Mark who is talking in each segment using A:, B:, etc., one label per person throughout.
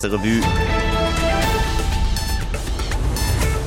A: Revue.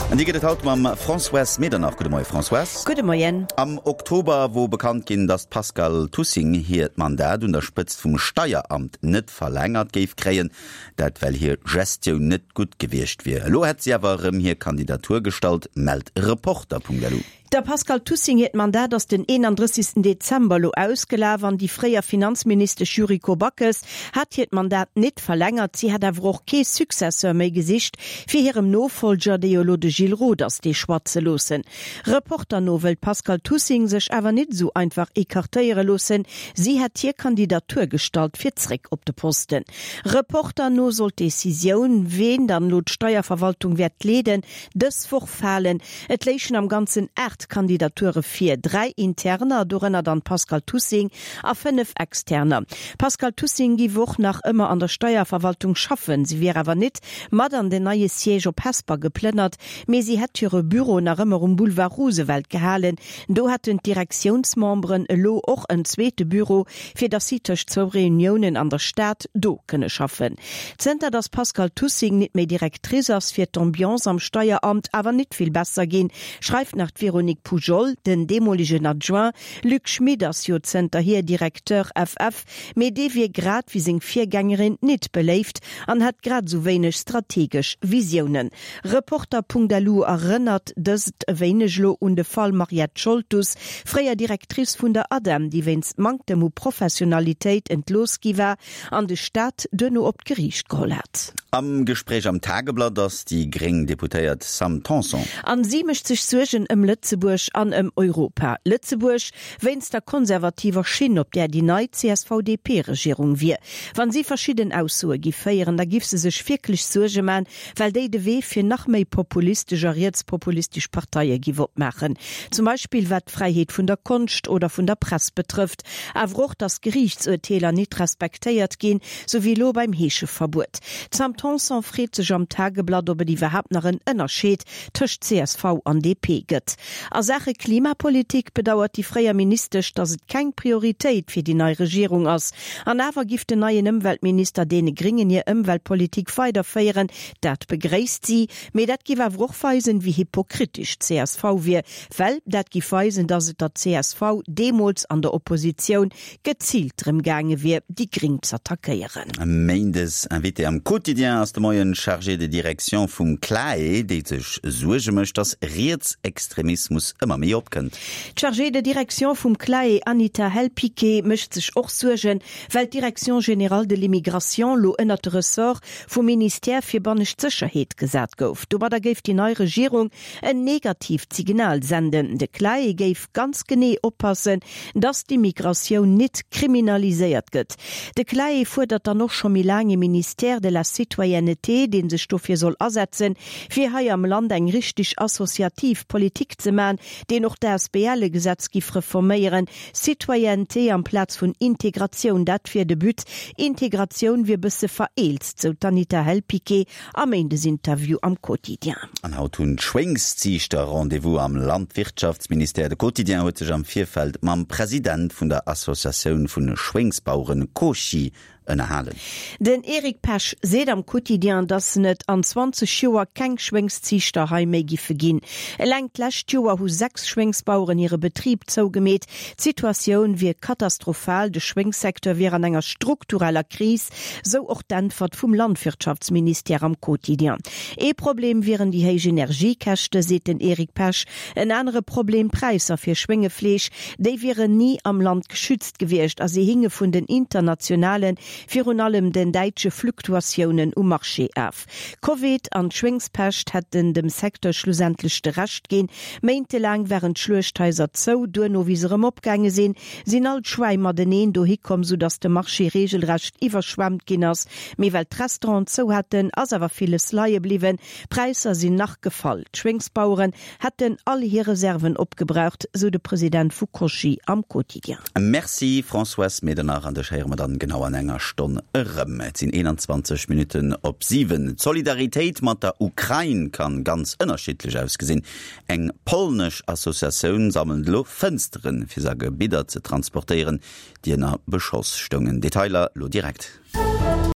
A: An déi gëtt et haut mam Françoise Medernach. Gudde Moie Françoise.
B: Gudde Moien.
A: Am Oktober wor bekannt ginn, datt d'Pascale Tussing hiert Mandat un der Spëtzt vum Steieramt net verlängert géif kréien. Dat well hir Gestioun net gutt gewiescht wier. Elo hätt si awer erëm hir Kandidatur gestallt, mellt Reporter.lu.
B: Der Pascale Tussing hiert Mandat ass den 31. Dezember elo ausgelaf an déi fréier Finanzministesch Yuriko Backes hat hiert Mandat nit verlängert. Si hätt awer och kee Successeur méi gesicht, fir hirem Nofollger, dee jo elo de Gilles Roth ass, dee Choix ze loossen. Reporter no wëll d'Pascale Tussing sech awer nit esou einfach ecartéiere loossen. Si hätt hir Kandidatur gestallt fir zréck op de Posten. Reporter no soll d'Decisioun, ween dann elo d'Steierverwaltung wäert leeden, dës Woch falen. Et léichen am Ganzen 8 Kandidature vir, 3 interner, dorënner dann d'Pascale Tussing, a 5 externer. D'Pascale Tussing giff och nach ëmmer an der Steierverwaltung schaffen, si wier awer nit mat an den neie Siège op Hesper geplënnert, mee si hätt hire Büro nach ëmmer um Boulevard Roosevelt gehalen. Do hätten d'Direktiounsmemberen elo och en zweete Büro, fir datt si tëscht zwou Reuniounen an der Stad do kënne schaffen. Zënter datt d'Pascale Tussing nit méi Directrice ass, wier d'Ambiance am Steieramt awer nit vill besser ginn, schreift nach d'Véronique Poujol. Den deemolegen Adjoint Luc Schmit ass jo zënterhier Directeur FF, mee dee wier grad wéi seng Virgängerin nit beléift an hätt grad esou wéineg strategesch Visiounen. Reporter.lu erënnert dëst e wéineg elo un de Fall Mariette Scholtus, fréier Directrice vun der ADEM, déi wéinst Manktem u Professionalitéit entlooss gi war an de Staat duerno op d'Geriicht geholl hat.
A: Am Gespréich am Tageblatt ass déi gréng Deputéiert Sam Tanson.
B: An si mécht sech Suergen ëm Lëtzebuerg an ëm Europa. Lëtzebuerg, wéinst der konservativer Schinn, op där déi nei CSV-DP-Regierung wier. Wann si verschidden Aussoe giff féieren, da giff se sech wierklech Suerge man, well déi de Wee fir nach méi populistesch a rietspopulistesch Parteie giff opmaachen, zum Beispill wat d'Fräiheet vun der Konscht oder vun der Press betrëfft, awer och, datt Geriichtsurteeler nit respektéiert ginn, sou wéi elo beim Heescheverbuet. D'Sam Tanson freet sech am Tageblatt, ob et iwwerhaapt nach en Ënnerscheed tëscht csv an DP gëtt. A Saache Klimapolitik bedauert déi fréier Ministesch, datt et keng Prioritéit fir déi nei Regierung ass. An awer giff den neien Ëmweltminister deene Gringen hir Ëmweltpolitik weiderféieren. Dat begréisst si. Mee dat giff awer och weisen, wéi hypokritesch d'CSV wier. Well dat giff weisen, datt et der csv deemools an der Oppositioun geziilt drëm gaange wier, déi Gring z'attackéieren.
A: Méindes Invité am Quotidien ass de Moien d'Chargée de direction vum CLAE, déi sech Suerge mécht, datt Rietsextremismus ëmmer méi opkënnt.
B: D'Chargée de direction vum CLAE Anita Hellpiqué mécht sech och Suergen, well d'Direction générale de l'immigration lo ënnert de Ressort vum Ministère fir bannescht Sécherheet gesat gouf. Domadder géif déi nei Regierung en negatiivt Signal senden. De CLAE géif ganz genee oppassen, datt d'Immigratioun nit kriminaliséiert gëtt. De CLAE fuerdert dann och scho méi laang ee Ministère de la citoyenneté, dee sech dofir soll asetzen, fir hei am Land eng richteg associativ Politik ze man, deen och d'ASBL-Gesetz giff reforméieren. Citoyenneté amplaz vun Integratioun, dat wier de But. Integratioun wier bësse vereelzt, sou d'Anita Hell-Piqué am Méindesinterview am Quotidien.
A: An haut hunn d'Schwéngsziichter Rendez-vous am Landwirtschaftsministère. De Quotidien huet sech am Virfeld mam President vun der Associatioun vun Schwéngsbaueren Cosci ënnerhalen.
B: Den Eric Pesch seet am Quotidien, datt et an 20 Joer keng Schwéngsziichter hei méi giffe ginn. Eleng d'lescht Joer hu 6 Schwéngsbaueren hire Betrib zougemeet. D'Situatioun wier katastrophal, de Schwéngssecteur wier an enger struktureller Kris, sou och d'Äntwert vum Landwirtschaftsministère am Quotidien. Ee Problem wieren déi héich Energiekäschte, seet den Eric Pesch. En anere Problem, d'Präisser fir Schwéngefleesch, déi wieren ni am Land geschützt. Gewiescht a si hinge vun den internationalen, virun allem den däitsche Fluktuatiounen um Marché af. Covid an d'Schwéngspescht hätten dem Secteur schlussendlech de Rescht ginn. Méintelaang waren d'Schluechthaiser zou, duerno wéi se erëm opgaange sinn, sinn all d'Schwäi mateneen dohi komm, soudatt de Marché reegelrecht iwwerschwemmt ginn ass. Mee well d'Restauranten zou haten, ass awer villes leie bliwwen. D'Präisser sinn nach gefall. D'Schwéngsbaueren hätten all hir Reserven opgebraucht, sou de President vu Cochy am Quotidien.
A: Merci Françoise Medernach, an dech héiere mer dann genau an enger Stonn erëm. Et sinn 21 Minutten op 7. D'Solidaritéit mat der Ukrain kann ganz ënnerschiddlech ausgesinn. Eng polnesch Associatioun sammelt elo Fënsteren, fir se a Gebidder ze transportéieren, déi ënner Beschoss stoungen. Detailer lo direkt.